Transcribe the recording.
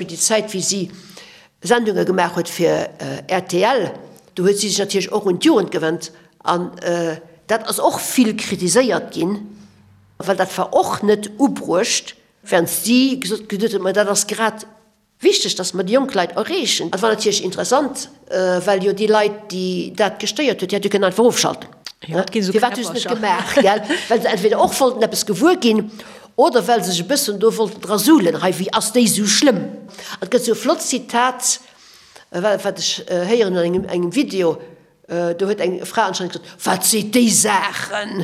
Déi Zäit, wéi si Sendunge gemaach huet fir rtl, do huet si sech natierlech och un d'Jugend gewennt an dat ass och vill kritiséiert ginn, well dat war och net ubruecht, während si gesot huet, ma dat ass grad wichteg, datt mer déi jonk Leit erreechen. Dat war natierlech interessant, well jo déi Leit, déi dat gestéiert huet, déi hätte kënnen einfach ofschalten. Firwat hu se net gemaach? Gell? Well se entweder och wollten eppes gewuer ginn oder well se sech e bëssen do wollten dra suhlen, hei, wéi ass déi esou schlëmm? Et gëtt esou e flott Zitat, wat ech héieren an engem Video, do huet eng Fra anscheinend gesot, Wat seet déi Saachen?